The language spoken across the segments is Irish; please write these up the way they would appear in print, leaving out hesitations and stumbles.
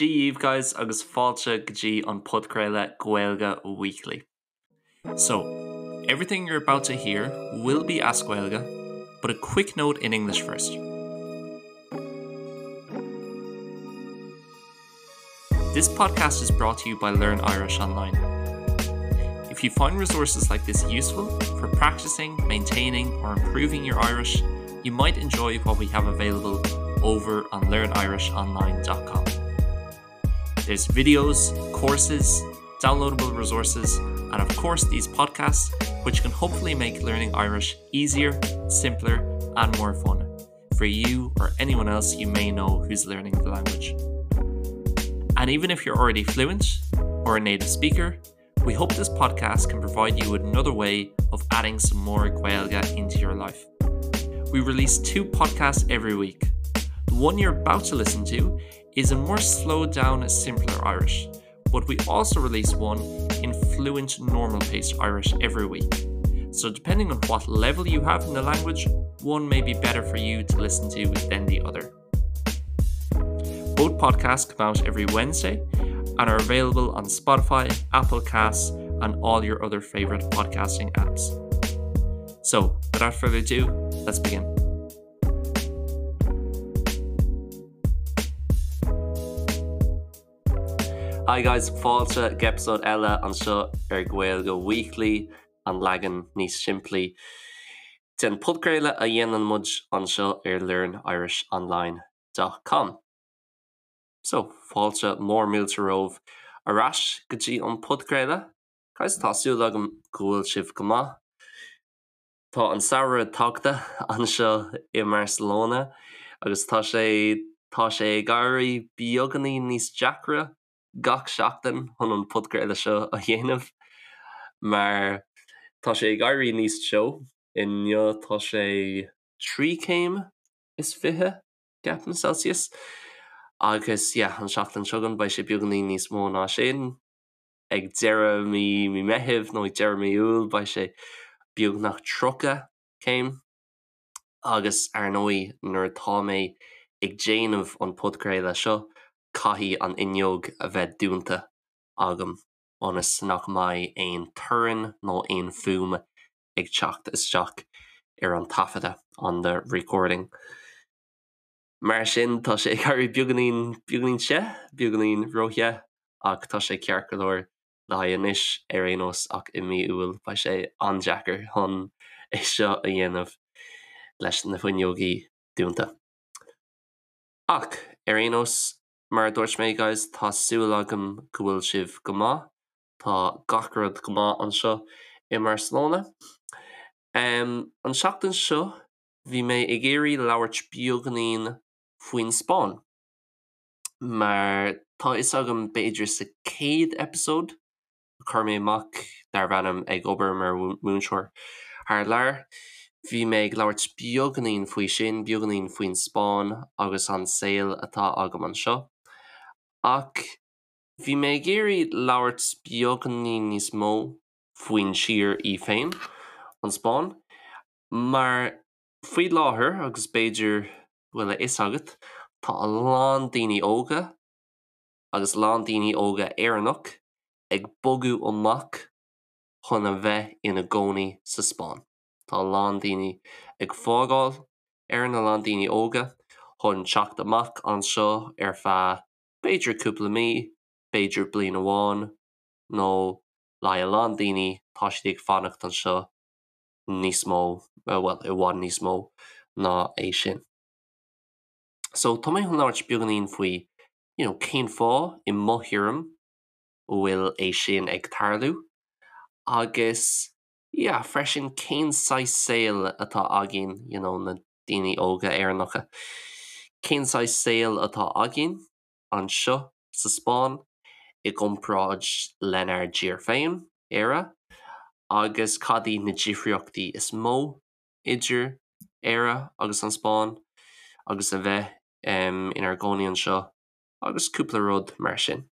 Dia dhaoibh guys agus fáilte go dtí an podchraoladh Gaeilge Weekly. So, everything you're about to hear will be as Gaeilge, but a quick note in English first. This podcast is brought to you by Learn Irish Online. If you find resources like this useful for practicing, maintaining or improving your Irish, you might enjoy what we have available over on learnirishonline.com. There's videos, courses, downloadable resources, and of course these podcasts, which can hopefully make learning Irish easier, simpler, and more fun for you or anyone else you may know who's learning the language. And even if you're already fluent or a native speaker, we hope this podcast can provide you with another way of adding some more Gaeilge into your life. We release two podcasts every week. The one you're about to listen to is a more slowed down, simpler Irish, but we also release one in fluent normal paced Irish every week. So depending on what level you have in the language, one may be better for you to listen to than the other. Both podcasts come out every Wednesday and are available on Spotify, Apple Casts, and all your other favorite podcasting apps. So, without further ado, let's begin. Hi guys, fáilte go eipeasóid eile anseo ar Gaeilge Weekly, an leagan níos simplí den podchraoladh a dhéanann muid anseo ar learnirishonline.com. So, fáilte mór mílte romhaibh ar ais go dtí an podchraoladh. Guys, tá súil agam go bhfuil sibh go maith. Tá an samhradh tagtha anseo i mBarcelona agus tá sé tá sé ag éirí beagáinín níos deacra gach seachtain chun an podchraoladh seo a dhéanamh mar tá sé ag éirí níos teo. Inniu tá sé 3 céim is 20 ceapaim Celsius agus yeah an seachtain seo chugainn beidh sé beagáinín níos mó ná sin. Ag deireadh mí mí Meithimh nó ag deireadh mí Iúil beidh sé beagnach 30 céim agus ar ndóigh nuair atá mé ag déanamh an podchraoladh seo caithfidh an fhuinneog a bheith dúnta agam ionas nach mbeidh aon torann nó aon fuaim ag teacht isteach ar an taifeadadh, on the recording. Mar sin, tá sé ag éirí beagáinín, beagáinín te, beagáinín róthe, ach tá sé ceart go leor le haghaidh anois ar aon nós ach i mí Iúil beidh sé an-deacair chun é seo a dhéanamh leis na fuinneogaí dúnta. Ach ar aon nós, mar a dúirt mé guys, tá súil agam go bhfuil sibh go maith, tá gach rud go maith anseo i mBarcelona. An tseachtain seo Bhí mé ag iarraidh labhairt beagáinín faoin Spáinn, mar tá fhios agam b'fhéidir sa chéad eipeasóid a chuir mé amach darbh ainm Ag obair mar mhúinteoir thar lear, bhí mé ag labhairt beagáinín faoi sin, beagáinín faoin Spáinn agus an saol atá agam anseo. Ach bhí mé ag iarraidh labhairt beagáinín níos mó faoin tír í féin, an Spáinn. Mar faoi láthair, agus b'fhéidir go bhfuil a fhios agat, tá a lán daoine óga, agus a lán daoine óga Éireannach, ag bogadh amach chun a bheith ina gcónaí sa Spáinn. Tá a lán daoine ag fágáil Éirinn, a lán daoine óga, chun teacht amach anseo ar feadh b'fhéidir cúpla mí, b'fhéidir bliain amháin, nó le haghaidh a lán daoine tá siad ag fanacht anseo níos mó, bhuel, i bhfad níos mó ná é sin. So, tá mé chun labhairt beagáinín faoi, you know, cén fáth, i mo thuairim, a bhfuil é sin ag tarlú, agus, yeah, freisin cén saghas saol atá againn, you know, na daoine óga Éireannacha, cén saghas saol atá againn anseo sa Spáinn i gcomparáid lenár dtír féin, Éire, agus cad iad na difríochtaí is mó idir Éire agus an Spáinn agus a bheith inár gcónaí anseo agus cúpla rud mar sin.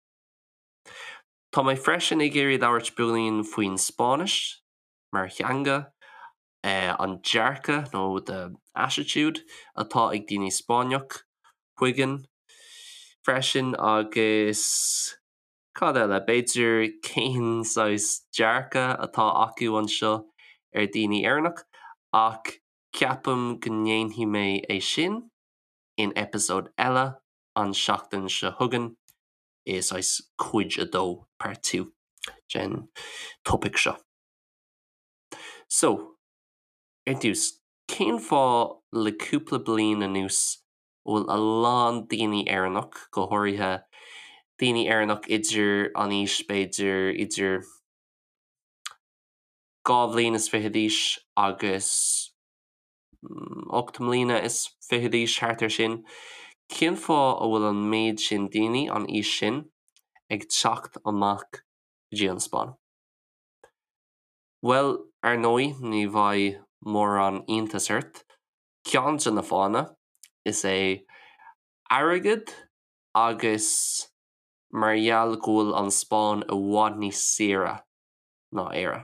Tá mé freisin ag iarraidh labhairt beagáinín faoin Spáinnis mar theanga, an dearcadh nó the attitude atá ag daoine Spáinneach chugainn. freisin agus cad eile, b'fhéidir cén saghas dearcadh atá acu anseo ar daoine Éireannach ach ceapaim go ndéanfaidh mé é sin in episode eile an seachtain seo chugainn i saghas cuid a dó, part 2, den topaic seo. So, ar dtús, cén fáth le cúpla bliain anuas a bhfuil a lán daoine Éireannach, go háirithe daoine Éireannach idir an aois b'fhéidir idir 22 bhliain is d'aois agus 8 mbliana is fiche d'aois, thart ar sin, cén fáth a bhfuil an méid sin daoine an aois sin ag teacht amach go dtí an Spáinn? Bhuel, ar ndóigh, ní bheidh mórán iontas ort, ceann de na fáthanna is ea airgead agus mar gheall go bhfuil an Spáinn i bhfad níos saoire ná Éire.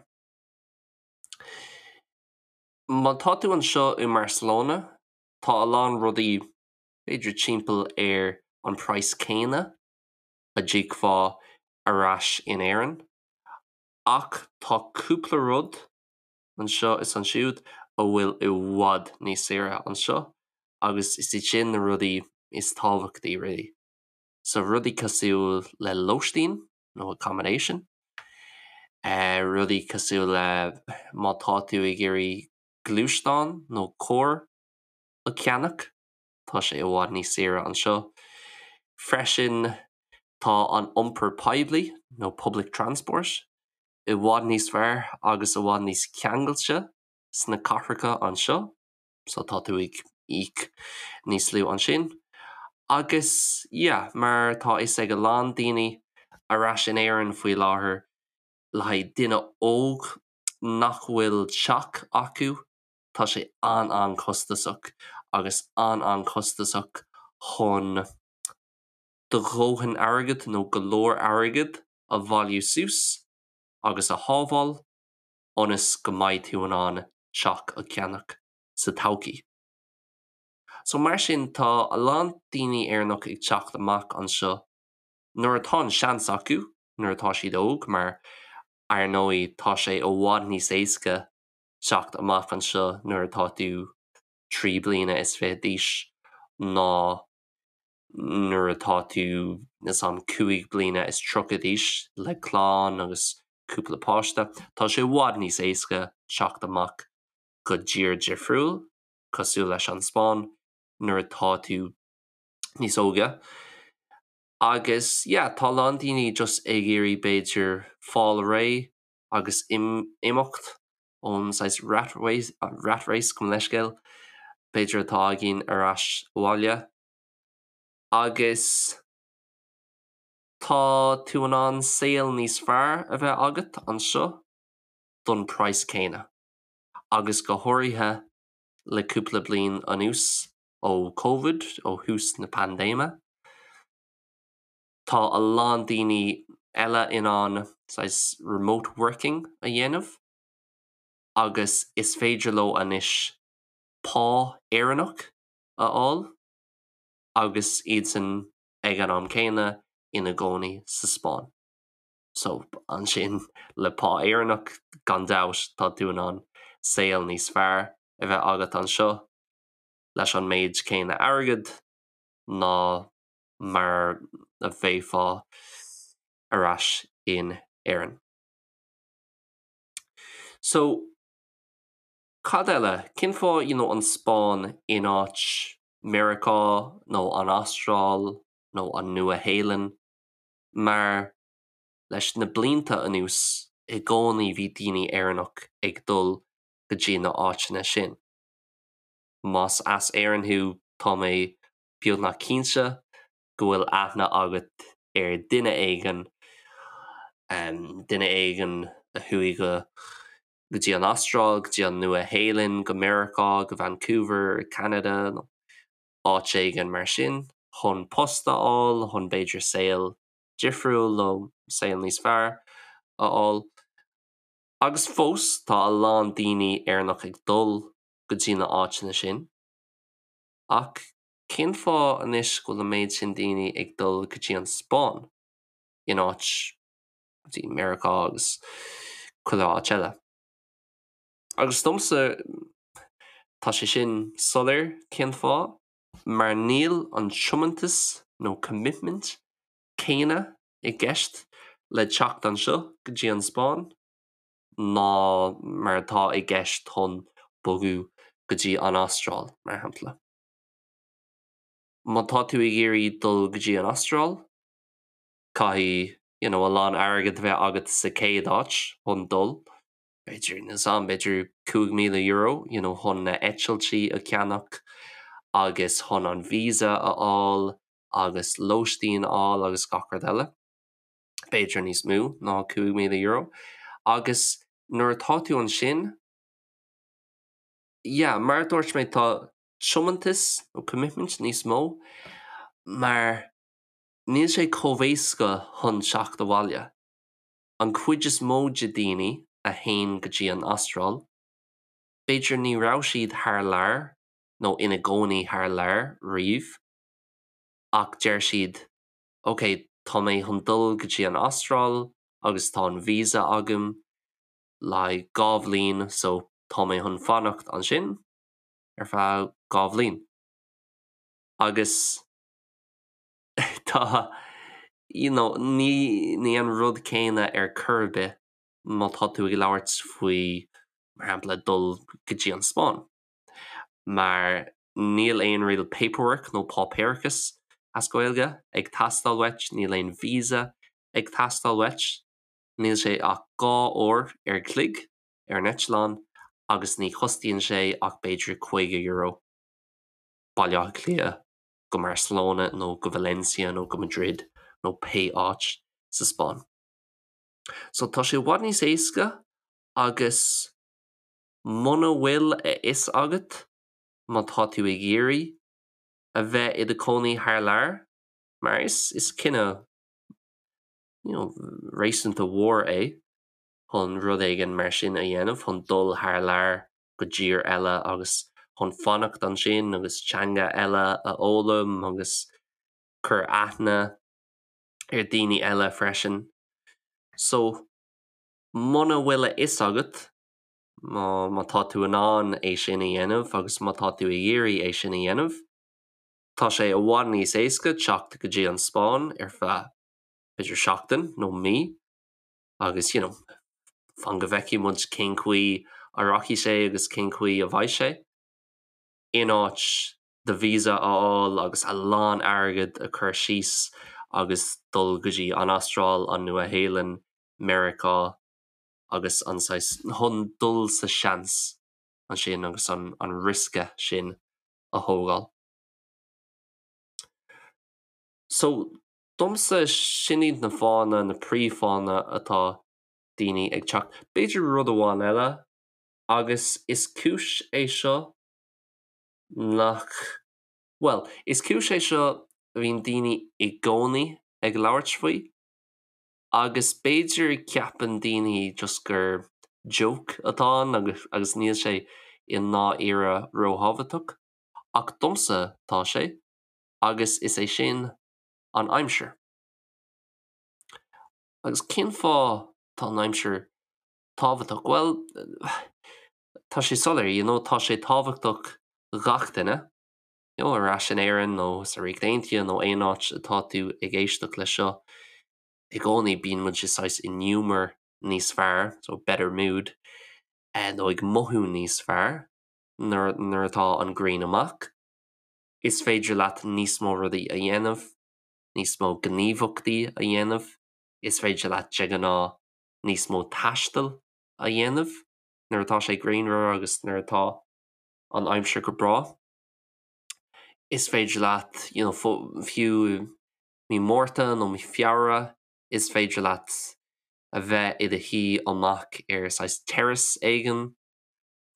Má tá tú anseo i mBarcelona, tá a lán rudaí b'fhéidir timpeall ar an praghas céanna a d'íocfá ar ais in Éirinn, ach tá cúpla rud anseo is ansiúd a bhfuil i bhfad níos saoire anseo agus is iad sin na rudaí is tábhachtaí really. So rudaí cosúil le lóistín nó accommodation, rudaí cosúil le má tá tú ag iarraidh gluaisteán nó carr a cheannach, tá sé i bhfad níos saoire anseo. Freisin tá an iompar poiblí nó public transport i bhfad níos fearr agus i bhfad níos ceangailte sna cathracha anseo, so tá tú ag íoc níos lú ansin. Agus yeah, mar tá fhios ag a lán daoine ar ais in Éirinn faoi láthair, le haghaidh duine óg nach bhfuil teach acu, tá sé an-an-chostasach agus an-an-chostasach chun do dhóthain airgid nó go leor airgid a bhailiú suas agus a shábháil ionas go mbeidh tú in ann teach a cheannach sa todhchaí. So mar sin tá a lán daoine Éireannach ag teacht amach anseo nuair atá an seans acu, nuair atá siad óg mar ar ndóigh tá sé i bhfad níos éasca teacht amach anseo nuair atá tú 23 bliana d'aois ná nuair atá tú níos am 35 bliana d'aois le clann agus cúpla páiste, tá sé i bhfad níos éasca teacht amach go dtír difriúil, cosúil leis an Spáinn, nuair atá tú níos óige. Agus yeah, tá a lán daoine just ag iarraidh b'fhéidir fáil réidh agus imeacht ón saghas rat race, rat race gabh mo leithscéal, b'fhéidir atá againn ar ais abhaile. Agus tá tú in ann saol níos fearr a bheith agat anseo don praghas céanna. Agus go háirithe le cúpla bliain anuas ó Covid, ó thús na paindéime, tá a lán daoine eile in ann saghas remote working a dhéanamh agus is féidir leo anois pá Éireannach a fháil agus iadsan ag an am céanna ina gcónaí sa Spáinn. So ansin le pá Éireannach gan dabht tá tú in ann saol níos fearr a bheith agat anseo leis an méid céanna airgid ná mar a bheifeá ar ais in Éirinn. So, cad eile? Cén fáth you know an Spáinn in áit Meiriceá nó an Astráil nó an Nua-Shéalainn? Mar leis na blianta anuas i gcónaí bhí daoine Éireannach ag dul go dtí na áiteanna sin. Más as Éirinn thú tá mé beagnach cinnte go bhfuil aithne agat ar duine éigin, duine éigin a chuaigh go go dtí an Astráil, go dtí an Nua-Shéalainn, go Meiriceá, go Vancouver, Ceanada nó áit éigin mar sin chun post a fháil, chun b'fhéidir saol difriúil nó saol níos fearr a fháil. Agus fós tá a lán daoine Éireannach ag dul go dtí na áiteanna sin ach. Cén fáth anois go bhfuil an méid sin daoine ag dul go dtí an Spáinn in áit go dtí Meiriceá agus chuile áit eile? Agus domsa tá sé sin soiléir cén fáth, mar níl an tiomantas nó commitment céanna i gceist le teacht anseo go dtí an Spáinn ná mar atá i gceist chun bogadh go dtí an Astráil, mar shampla. Má tá tú ag iarraidh dul go dtí an Astráil, caithfidh you know, a lán airgead a bheith agat sa chéad áit chun dul, b'fhéidir, níl 's a'm, b'fhéidir €5,000 you know, chun na eitiltí a cheannach agus chun an visa a fháil agus lóistín a fháil agus gach rud eile. B'fhéidir níos mó ná €5,000. Agus nuair atá tú ansin, yeah, mar a dúirt mé, tá tiomantas nó commitment níos mó mar níl sé chomh éasca chun teacht abhaile. An chuid is mó de daoine a théann go dtí an Astráil, b'fhéidir ní raibh siad thar lear nó ina gcónaí thar lear riamh ach deir siad ok tá mé chun dul go dtí an Astráil agus tá an visa agam le haghaidh 2 bhliain so tá mé chun fanacht ansin ar feadh 2 bhliain. Agus tá you know ní ní an rud céanna ar chor ar bith má tá tú ag labhairt faoi mar shampla dul go dtí an Spáinn. Mar níl aon real paperwork nó páipéarachas as Gaeilge ag teastáil uait, níl aon visa ag teastáil uait, níl sé ach 2 uair ar chloig ar an eitleán agus ní chostaíonn sé ach b'fhéidir €50 Baile Átha Cliath go Barcelona nó go Valencia nó go Madrid nó pé áit sa Spáinn. So tá sé i bhfad níos éasca agus muna bhfuil a fhios agat má tá tú ag iarraidh a bheith i do chónaí thar lear, mar is is cinneadh you know réasúnta mhór é chun rud éigin mar sin a dhéanamh, chun dul thar lear go dtír eile agus chun fanacht ansin agus teanga eile a fhoghlaim agus cur aithne ar daoine eile freisin. So muna bhfuil a fhios agat má tá tú in ann é sin a dhéanamh agus má tá tú ag iarraidh é sin a dhéanamh, tá sé i bhfad níos éasca teacht go dtí an Spáinn ar feadh b'fhéidir seachtain nó mí agus you know fan go bhfeicfidh muid cén chaoi a rachaidh sé agus cén chaoi a bheidh sé, in áit do visa a fháil agus a lán airgead a chur síos agus dul go dtí an Astráil, an Nua-Shéalainn, Meiriceá agus an saghas chun dul sa seans ansin agus an an riosca sin a thógáil. So, domsa sin iad na fáthanna, na príomhfháthanna atá daoine ag teacht. B'fhéidir rud amháin eile agus is cúis é seo nach, bhuel, is cúis é seo a bhíonn daoine i gcónaí ag labhairt faoi agus b'fhéidir ceapann daoine just gur joke atá ann agus agus níl sé i ndáiríre róthábhachtach ach domsa tá sé agus is é sin an aimsir. Agus cén fáth tá an aimsir tábhachtach? Bhuel, tá sé soiléir, you know, tá sé tábhachtach gach duine, you know, ar ais in Éirinn nó sa Ríocht Aontaithe nó aon áit atá tú ag éisteacht leis seo, i gcónaí bíonn muid i saghas i ngiúmar níos fearr, so better mood, nó ag mothú níos fearr nuair nuair atá an ghrian amach. Is féidir leat níos mó rudaí a dhéanamh, níos mó gníomhaíochtaí a dhéanamh, is féidir leat de ghnáth níos mó taistil a dhéanamh nuair atá sé grianmhar agus nuair atá an aimsir go breá. Is féidir leat you know, fiú mí Márta nó mí Feabhra, is féidir leat a bheith i do shuí amach ar saghas terrace éigin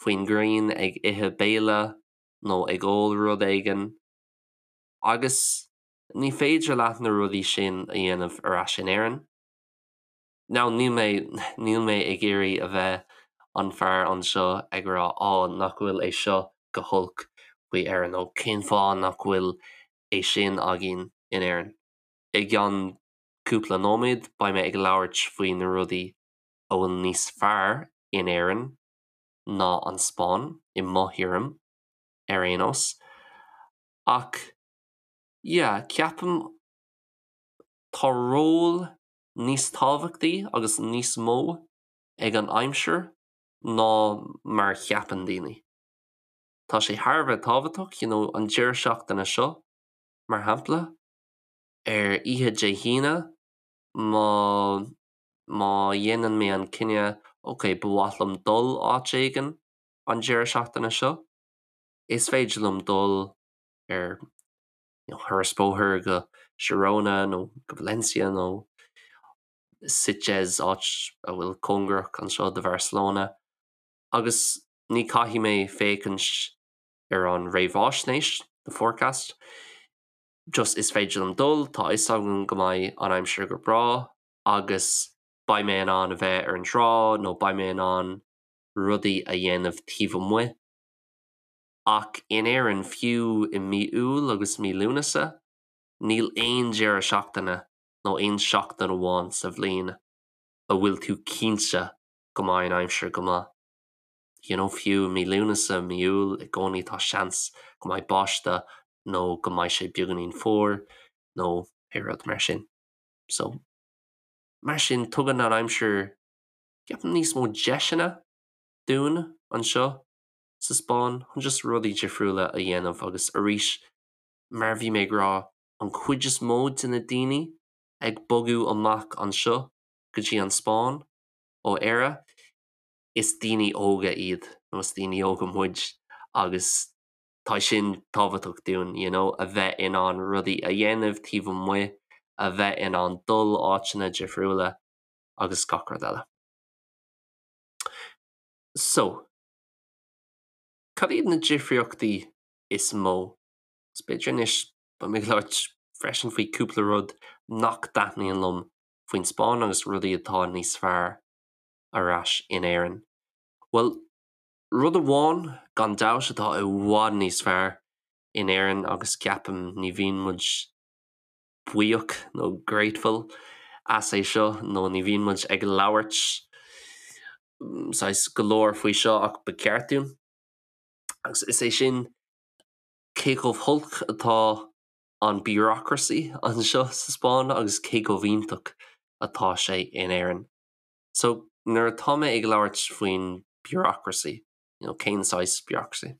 faoin ngrian ag ithe béile nó ag ól rud éigin agus ní féidir leat na rudaí sin a dhéanamh ar ais in Éirinn. Now níl mé, níl mé ag iarraidh a bheith an fear anseo ag rá á nach bhfuil é seo go holc. faoi Éirinn nó cén fáth nach bhfuil é sin againn in Éirinn. I gceann cúpla nóiméad beidh mé ag labhairt faoi na rudaí a bhfuil níos fearr in Éirinn ná an Spáinn, i mo thuairim ar aon nós. Ach yeah, ceapaim tá ról níos tábhachtaí agus níos mó ag an aimsir ná mar a cheapann daoine. Tá sé thar a bheith tábhachtach, you know, an deireadh seachtaine seo, mar shampla, ar oíche Dé hAoine, má má dhéanann mé an cinneadh, ok, ba mhaith liom dul áit éigin an deireadh seachtaine seo, is féidir liom dul ar you know, thuras bóthair go Girona nó go Valencia nó Sitges, áit a bhfuil cóngarach anseo do Bharcelona, agus ní caithfidh mé féachaint ar an réamhaisnéis, the forecast, just is féidir liom dul, tá a fhios agam go mbeidh an aimsir go breá agus beidh mé in ann a bheith ar an trá nó beidh mé in ann rudaí a dhéanamh taobh amuigh. Ach in Éirinn, fiú i mí Iúil agus mí Lúnasa, níl aon deireadh seachtaine nó aon seachtain amháin sa bhliain a bhfuil tú cinnte go mbeidh an aimsir go maith. You know, fiú i mí Lúnasa, mí Iúil, i gcónaí tá seans go mbeidh báisteach nó go mbeidh sé beagáinín fuar nó pé rud mar sin. So, mar sin, tugann an aimsir, ceapaim, níos mó deiseanna dúinn anseo sa Spáinn chun just rudaí difriúla a dhéanamh agus arís, mar a bhí mé ag rá, an chuid is mó de na daoine ag bogadh amach anseo go dtí an Spáinn ó Éire, is daoine óga iad nó is daoine óga muid agus tá sin tábhachtach dúinn, you know, a bheith in ann rudaí a dhéanamh taobh amuigh, a bheith in ann dul áiteanna difriúla agus gach rud eile. So, cad iad na difríochtaí is mó? Is b'fhéidir anois beidh mé ag labhairt freisin faoi cúpla rud nach dtaitníonn liom faoin Spáinn agus rudaí atá níos fearr ar ais in Éirinn. Bhuel, rud amháin gan dabht atá i bhfad níos fearr in Éirinn agus ceapaim ní bhíonn muid buíoch nó grateful as é seo nó ní bhíonn muid ag labhairt saghas go leor faoi seo ach ba cheart dúinn. Agus is é sin cé chomh holc atá an bureaucracy anseo sa Spáinn agus cé chomh iontach atá sé in Éirinn. So nuair atá mé ag labhairt faoin bureaucracy, you know, cén saghas bureaucracy?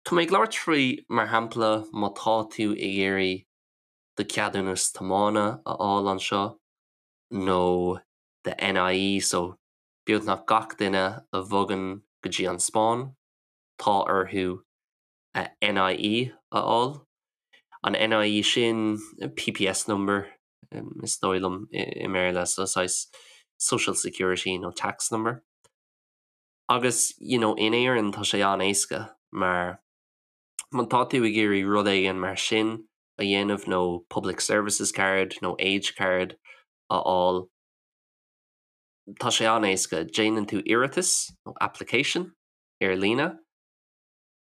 Tá mé ag labhairt faoi, mar shampla, má tá tú ag iarraidh do cheadúnas tiomána a fháil anseo nó do NIE, so beagnach gach duine a bhogann go dtí an Spáinn, tá orthu a NIE a fháil. An NIE sin, PPS number is dóigh liom i mBéarla, so saghas social security nó tax number. Agus you know in Éirinn tá sé an-éasca mar má tá tú ag iarraidh rud éigin mar sin a dhéanamh nó public services card nó age card a fháil, tá sé an-éasca. Déanann tú iarratas nó application ar líne,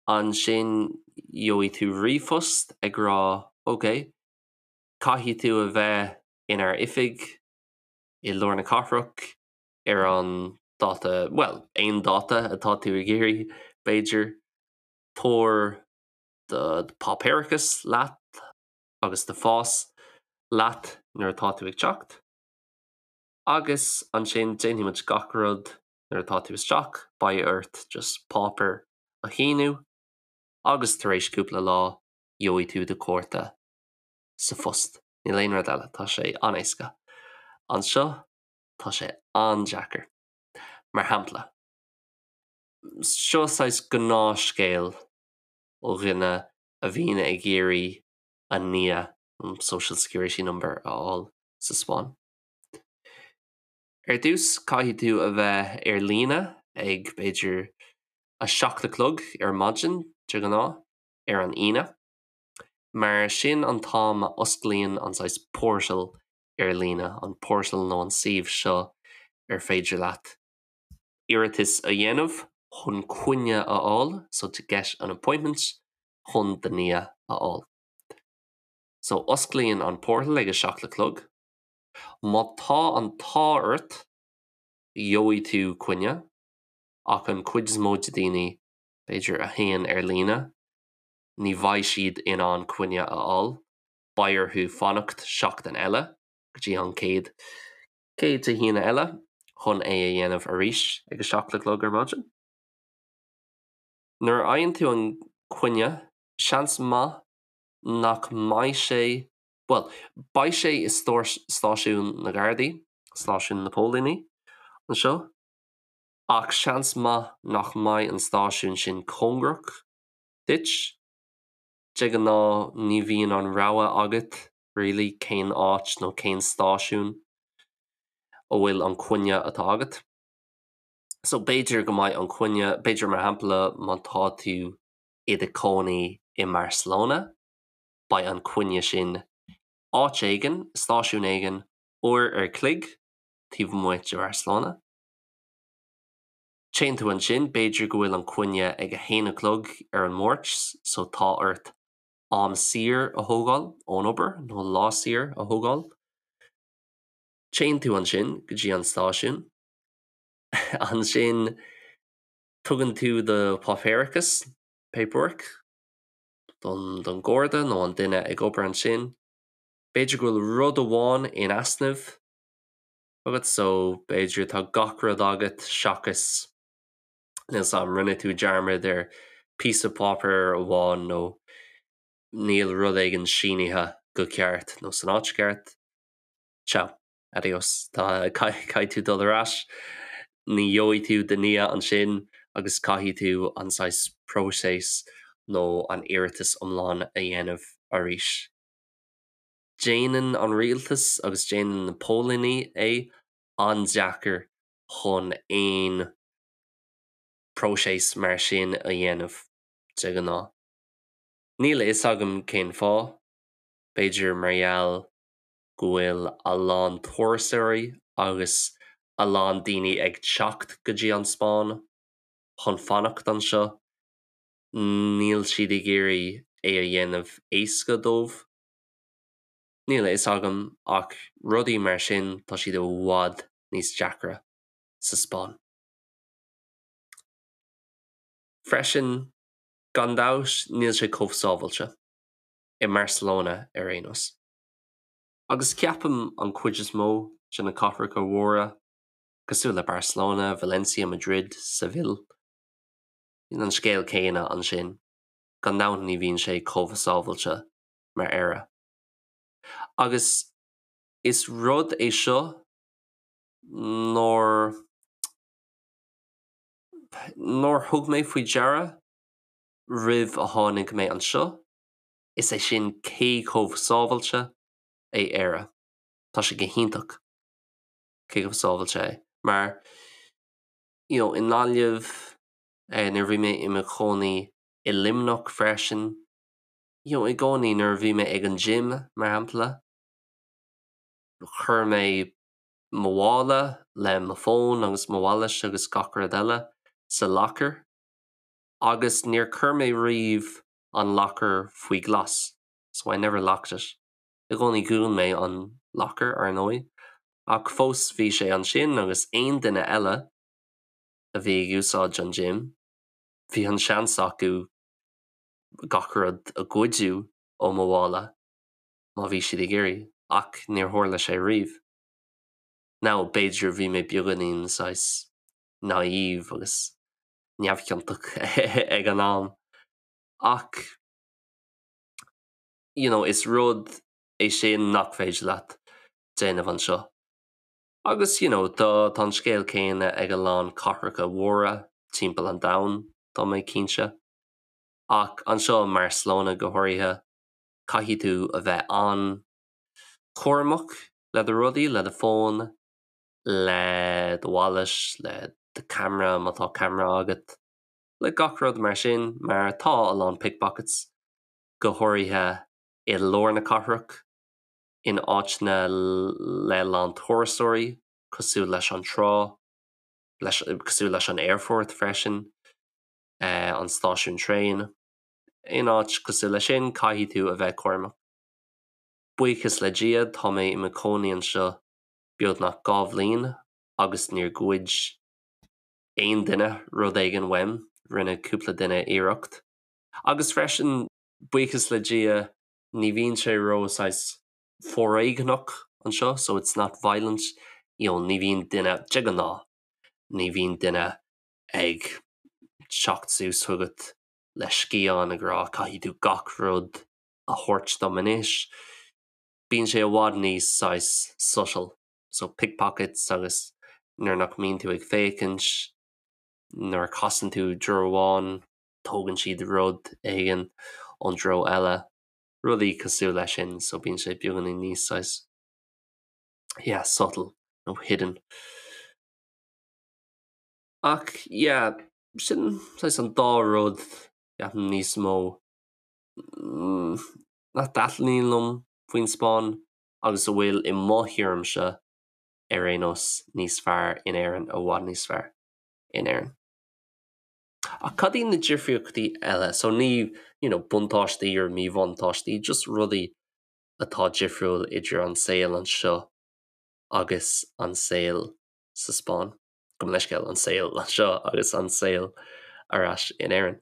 ansin gheobhaidh tú ríomhphost ag rá ok, caithfidh tú a bheith inár oifig i lár na cathrach ar an dáta, bhuel, aon dáta atá tú ag iarraidh, b'fhéidir. Tabhair do pháipéarachas leat agus do phas leat nuair atá tú ag teacht. Agus ansin déanfaidh muid gach rud nuair atá tú isteach, beidh ort just páipéar a shíniú agus tar éis cúpla lá gheobhaidh tú do chárta sa phost. Níl aon rud eile, tá sé an-éasca. Anseo tá sé an-deacair. Mar shampla, seo saghas gnáthscéal ó dhuine a bhíonn ag iarraidh a NIE, Social Security Number, a fháil sa Spáinn. Ar dtús, caithfidh tú a bheith ar líne ag, b'fhéidir, 7 a chlog ar maidin, de ghnáth, ar an Aoine, mar sin an t-am a osclaíonn an saghas portal ar líne, an portal nó an suíomh seo ar féidir leat iarratas a dhéanamh chun coinne a fháil, so to get an appointment. chun do NIE a fháil. So osclaíonn an portal ag a 7 a chlog. Má tá an t-ádh ort, gheobhaidh tú coinne, ach an chuid is mó de daoine, b'fhéidir, a théann ar líne, ní bheidh siad in ann coinne a fháil, beidh orthu fanacht seachtain eile go dtí an chéad chéad Dé hAoine eile chun é a dhéanamh arís ag a 7 a chlog ar maidin. Nuair a fhaigheann tú an coinne, seans maith nach mbeidh sé, bhuel, beidh sé i stáisiún na Gardaí, stáisiún na póilíní anseo, ach seans maith nach mbeidh an stáisiún sin cóngarach duit. De ghnáth ní bhíonn an rogha agat really cén áit nó cén stáisiún a bhfuil an coinne atá agat. So b'fhéidir go mbeidh an coinne, b'fhéidir mar shampla má tá tú i do chónaí i mBarcelona, beidh an coinne sin áit éigin, stáisiún éigin, uair ar chloig taobh amuigh de Bharcelona. Téann tú ansin, b'fhéidir go bhfuil an coinne ag a haon a chlog ar an Máirt, so tá ort am saor a thógáil ón obair nó lá saor a thógáil. Téann tú ansin go dtí an stáisiún. Ansin tugann tú do páipéarachas, paperwork, don don Gharda nó an duine ag obair ansin. B'fhéidir go bhfuil rud amháin in easnamh agat so b'fhéidir tá gach rud agat seachas níl 's a'm, rinne tú dearmad ar píosa páipéir amháin nó níl rud éigin sínithe go ceart nó san áit cheart. Ciao. Adios. Tá, caithfidh tú dul ar ais, ní gheobhaidh tú do NIE ansin agus caithfidh tú an saghas próiseas nó an iarratas iomlán a dhéanamh arís. Déanann an rialtas agus déanann na póilíní é an-deacair chun aon próiseas mar sin a dhéanamh, de ghnáth. Níl a fhios agam cén fáth, b'fhéidir mar gheall go bhfuil a lán turasóirí agus a lán daoine ag teacht go dtí an Spáinn chun fanacht anseo, níl siad ag iarraidh é a dhéanamh éasca dóibh. Níl a fhios agam ach rudaí mar sin tá siad i bhfad níos deacra sa Spáinn. Freisin, gan dabht níl sé chomh sábhailte, i mBarcelona ar aon nós. Agus ceapaim an chuid is mó de na cathracha mhóra, cosúil le Barcelona, Valencia, Madrid, Seville, bíonn an scéal céanna ansin, gan dabht ní bhíonn sé chomh sábhailte mar Éire. Agus is rud é seo nár nár thug mé faoi deara roimh a tháinig mé anseo, is é sin cé chomh sábhailte é Éire. Tá sé go hiontach cé chomh sábhailte é. Mar, you know, i nGaillimh, eh, nuair a bhí mé i mo chónaí i Luimneach freisin, you know, i gcónaí nuair a bhí mé ag an gym, mar shampla, chuir mé mo mhála le mo fón agus mo wallet agus gach rud eile sa locker agus níor chuir mé riamh an locker faoi ghlas, so I never locked it. I gcónaí dhún mé an locker, ar ndóigh, ach fós bhí sé ansin agus aon duine eile a bhí ag úsáid an gym, bhí an seans acu gach rud a ghoideadh ó mo mhála má bhí siad ag iarraidh, ach níor tharla sé riamh. Now, b'fhéidir bhí mé beagáinín saghas naive agus neamhchiontach ag an am, ach you know, is rud é sin nach féidir leat déanamh anseo. Agus you know, tá tá an scéal céanna ag a lán cathracha mhóra timpeall an domhain, tá mé cinnte. Ach anseo i mBarcelona go háirithe, caithfidh tú a bheith an-chúramach le do rudaí, le do fón, le do wallet, le do camera má tá camera agat, le gach rud mar sin, mar tá a lán pickpockets, go háirithe i lár na cathrach, in áiteanna le lán turasóirí, cosúil leis an trá, leis, cosúil leis an aerfort freisin, an stáisiún traein. Aon áit cosúil leis sin, caithfidh tú a bheith cúramach. Buíochas le Dia, tá mé i mo chónaí anseo beagnach 2 bhliain agus níor ghoid aon duine rud éigin uaim, rinne cúpla duine iarracht. Agus freisin, buíochas le Dia, ní bhíonn sé ró saghas foréigneach anseo, so it's not violent, you know, ní bhíonn duine, de ghnáth, ní bhíonn duine ag teacht suas chugat le scian ag rá caithfidh tú gach rud a thabhairt dom anois. Bíonn sé i bhfad níos saghas subtle, so pickpockets agus nuair nach mbíonn tú ag féachaint, nuair a chasann tú treo amháin, tógann siad rud éigin ón treo eile, rudaí cosúil leis sin, so bíonn sé beagáinín níos saghas, yeah, subtle nó hidden. Ach yeah, sin saghas an dá rud ceapaim níos mó nach dtaitníonn liom faoin Spáinn agus a bhfuil i mo thuairimse ar aon nós níos fearr in Éirinn, i bhfad níos fearr in Éirinn. Ach cad iad na difríochtaí eile? So ní, you know, buntáistí or míbhuntáistí, just rudaí atá difriúil idir an saol anseo agus an saol sa Spáinn. Gabh mo leithscéal, an saol anseo agus an saol ar ais in Éirinn.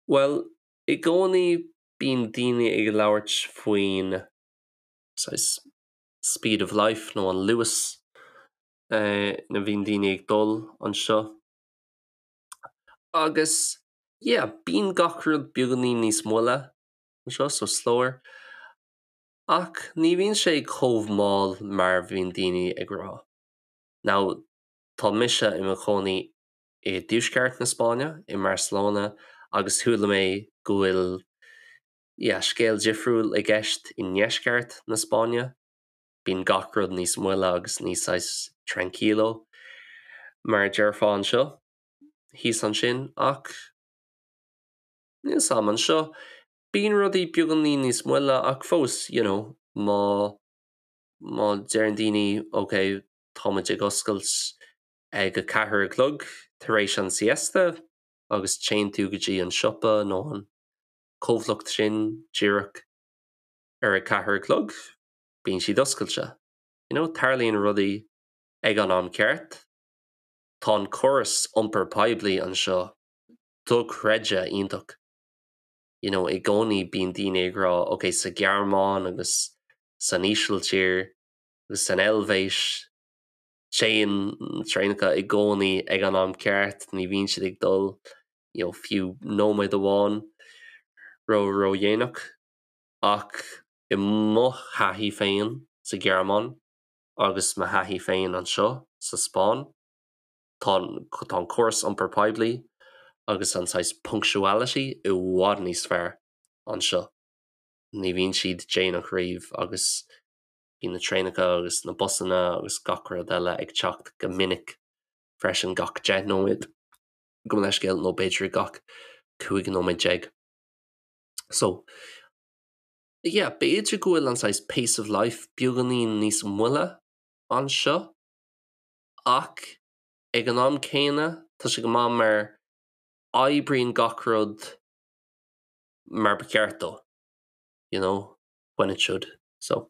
Bhuel, i gcónaí bíonn daoine ag labhairt faoin saghas speed of life nó an luas ina bhíonn daoine ag dul anseo. Agus yeah, bíonn gach rud beagáinín níos moille anseo, so slower. Ach ní bhíonn sé chomh mall mar bhíonn daoine ag rá. Now, tá mise i mo chónaí i dtuaisceart na Spáinne, i mBarcelona, agus chuala mé go bhfuil yeah, scéal difriúil i gceist i ndeisceart na Spáinne. Bíonn gach rud níos moille agus níos saghas tranquilo, mar a déarfá anseo, thíos ansin, ach níl 'fhios a'm, anseo, bíonn rudaí beagáinín níos moille ach fós, you know, má, má deireann daoine ok, tá muid ag oscailt ag a ceathair a chlog tar éis an siesta agus téann tú go dtí an siopa nó an comhlacht sin díreach ar a ceathair a chlog, bíonn siad oscailte. You know, tarlaíonn rudaí ag an am ceart. Tá an córas iompar poiblí anseo dochreidte iontach. You know, i gcónaí bíonn daoine ag rá ok, sa Ghearmáin agus san Ísiltír agus san Eilvéis téann traenacha i gcónaí ag an am ceart, ní bhíonn siad ag dul you know, fiú nóiméad amháin ró ródhéanach. Ach i mo thaithí féin sa Ghearmáin agus mo thaithí féin anseo sa Spáinn, tá tá an córas iompar poiblí agus an saghas punctuality i bhfad níos fearr anseo. Ní bhíonn siad déanach riamh agus bíonn na traenacha agus na busanna agus gach rud eile ag teacht go minic freisin gach 10 nóiméad, gabh mo leithscéal, nó b'fhéidir gach 15 nóiméad. So, yeah, b'fhéidir go bhfuil an saghas pace of life beagáinín níos moille anseo ach ag an am céanna tá sé go maith mar oibríonn gach rud mar ba cheart dó, you know, when it should. So,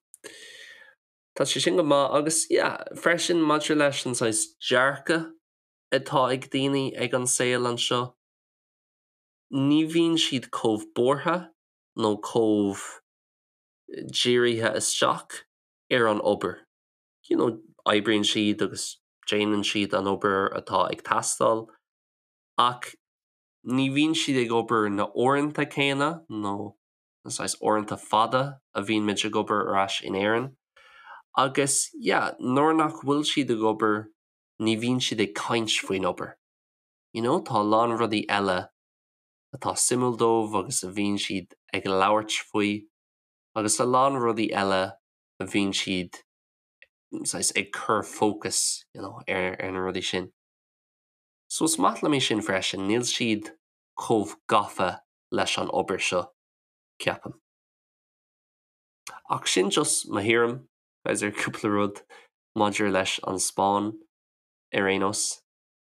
tá sé sin go maith agus yeah, freisin maidir leis an saghas dearcadh atá ag daoine ag an saol anseo, ní bhíonn siad chomh buartha nó chomh dírithe isteach ar an obair. You know, oibríonn siad agus déanann siad an obair atá ag teastáil ach ní bhíonn siad ag obair na uaireanta céanna nó na saghas uaireanta fada a bhíonn muid ag obair ar ais in Éirinn. Agus yeah, nuair nach bhfuil siad ag obair ní bhíonn siad ag caint faoin obair. You know, tá a lán rudaí eile atá suimiúil dóibh agus a bhíonn siad ag labhairt faoi agus a lán rudaí eile a bhíonn siad saghas ag cur fócas you know, ar, ar na rudaí sin. So is maith liom é sin freisin, níl siad chomh gafa leis an obair seo, ceapaim. Ach sin just mo thuairim, guys, ar cúpla rud maidir leis an Spáinn ar aon nós.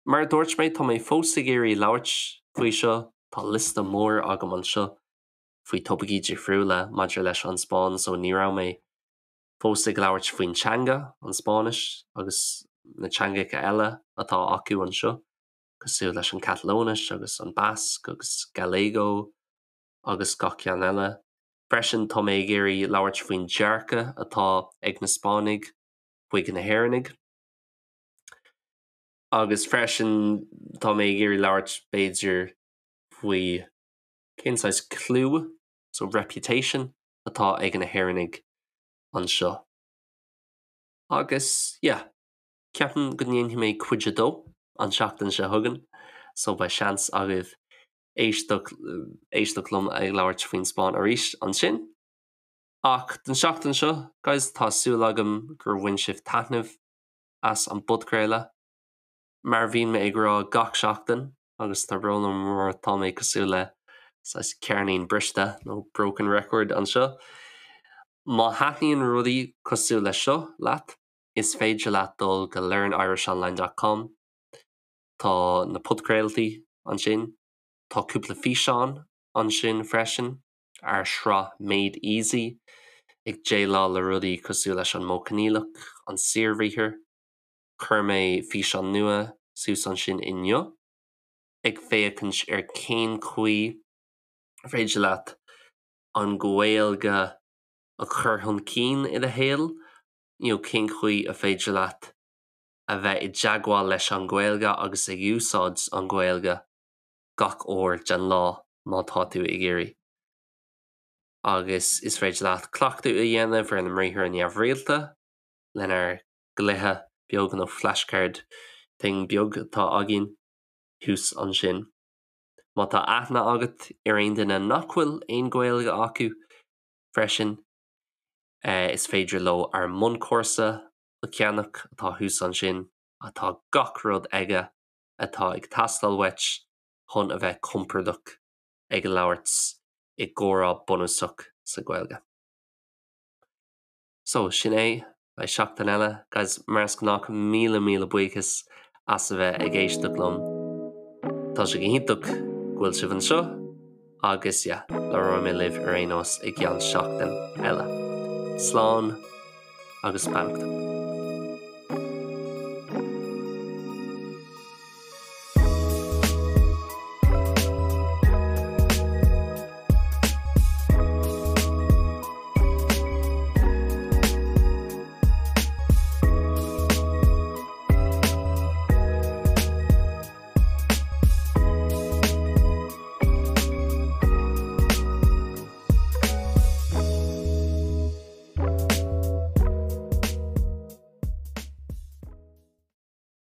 Mar a dúirt mé, tá mé fós ag iarraidh labhairt faoi seo. Tá liosta mór agam anseo faoi topaicí difriúla maidir leis an Spáinn so ní raibh mé fós ag labhairt faoin teanga, an Spáinnis, agus na teangacha eile atá acu anseo, cosúil leis an Catalóinis agus an Basque agus Galego agus gach ceann eile. Freisin tá mé ag iarraidh labhairt faoin dearcadh atá ag na Spáinnigh chuig na hÉireannaigh. Agus freisin tá mé ag iarraidh labhairt b'fhéidir faoi cén saghas clú, so reputation, atá ag na hÉireannaigh anseo. Agus yeah, ceapaim go ndéanfaidh mé cuid a dó an tseachtain seo chugainn, so beidh seans agaibh éisteacht éisteacht liom ag labhairt faoin Spáinn arís ansin. Ach don seachtain seo, guys, tá súil agam gur bhain sibh taitneamh as an bpodchraoladh. Mar a bhíonn mé ag rá gach seachtain, agus tá brón orm mar tá mé cosúil le saghas ceirnín briste nó broken record anseo. Má thaitníonn rudaí cosúil leis seo leat, is féidir leat dul go learnirishonline dot com, tá na podchraoltaí ansin, tá cúpla físeán ansin freisin, ár sraith Made Easy, ag déileáil le rudaí cosúil leis an modh coinníollach, an saorbhriathar. Chuir mé físeán nua suas ansin inniu, ag féachaint ar cén chaoi ar féidir leat an Ghaeilge a chur chun cinn i do shaol, you know cén chaoi a féidir leat a bheith i dteagmháil leis an Ghaeilge agus ag úsáid an Ghaeilge gach uair den lá má tá tú ag iarraidh. Agus is féidir leat cleachtadh a dhéanamh ar na mbriathra neamhrialta lenár gcluiche beag nó flashcard thing beag atá againn thuas ansin. Má tá aithne agat ar aon duine nach bhfuil aon Ghaeilge acu freisin, is féidir leo ár mbunchúrsa a cheannach atá thuas ansin, atá gach rud aige atá ag teastáil uait chun a bheith compordach ag labhairt i gcomhrá bunúsach sa Ghaeilge. So, sin é, beidh seachtain eile, guys, mar is gnách, míle míle buíochas as a bheith ag éisteacht liom. Tá sé go hiontach go bhfuil sibh anseo agus yeah, labhróidh mé libh ar aon nós i gceann seachtain eile. Slán agus beannacht.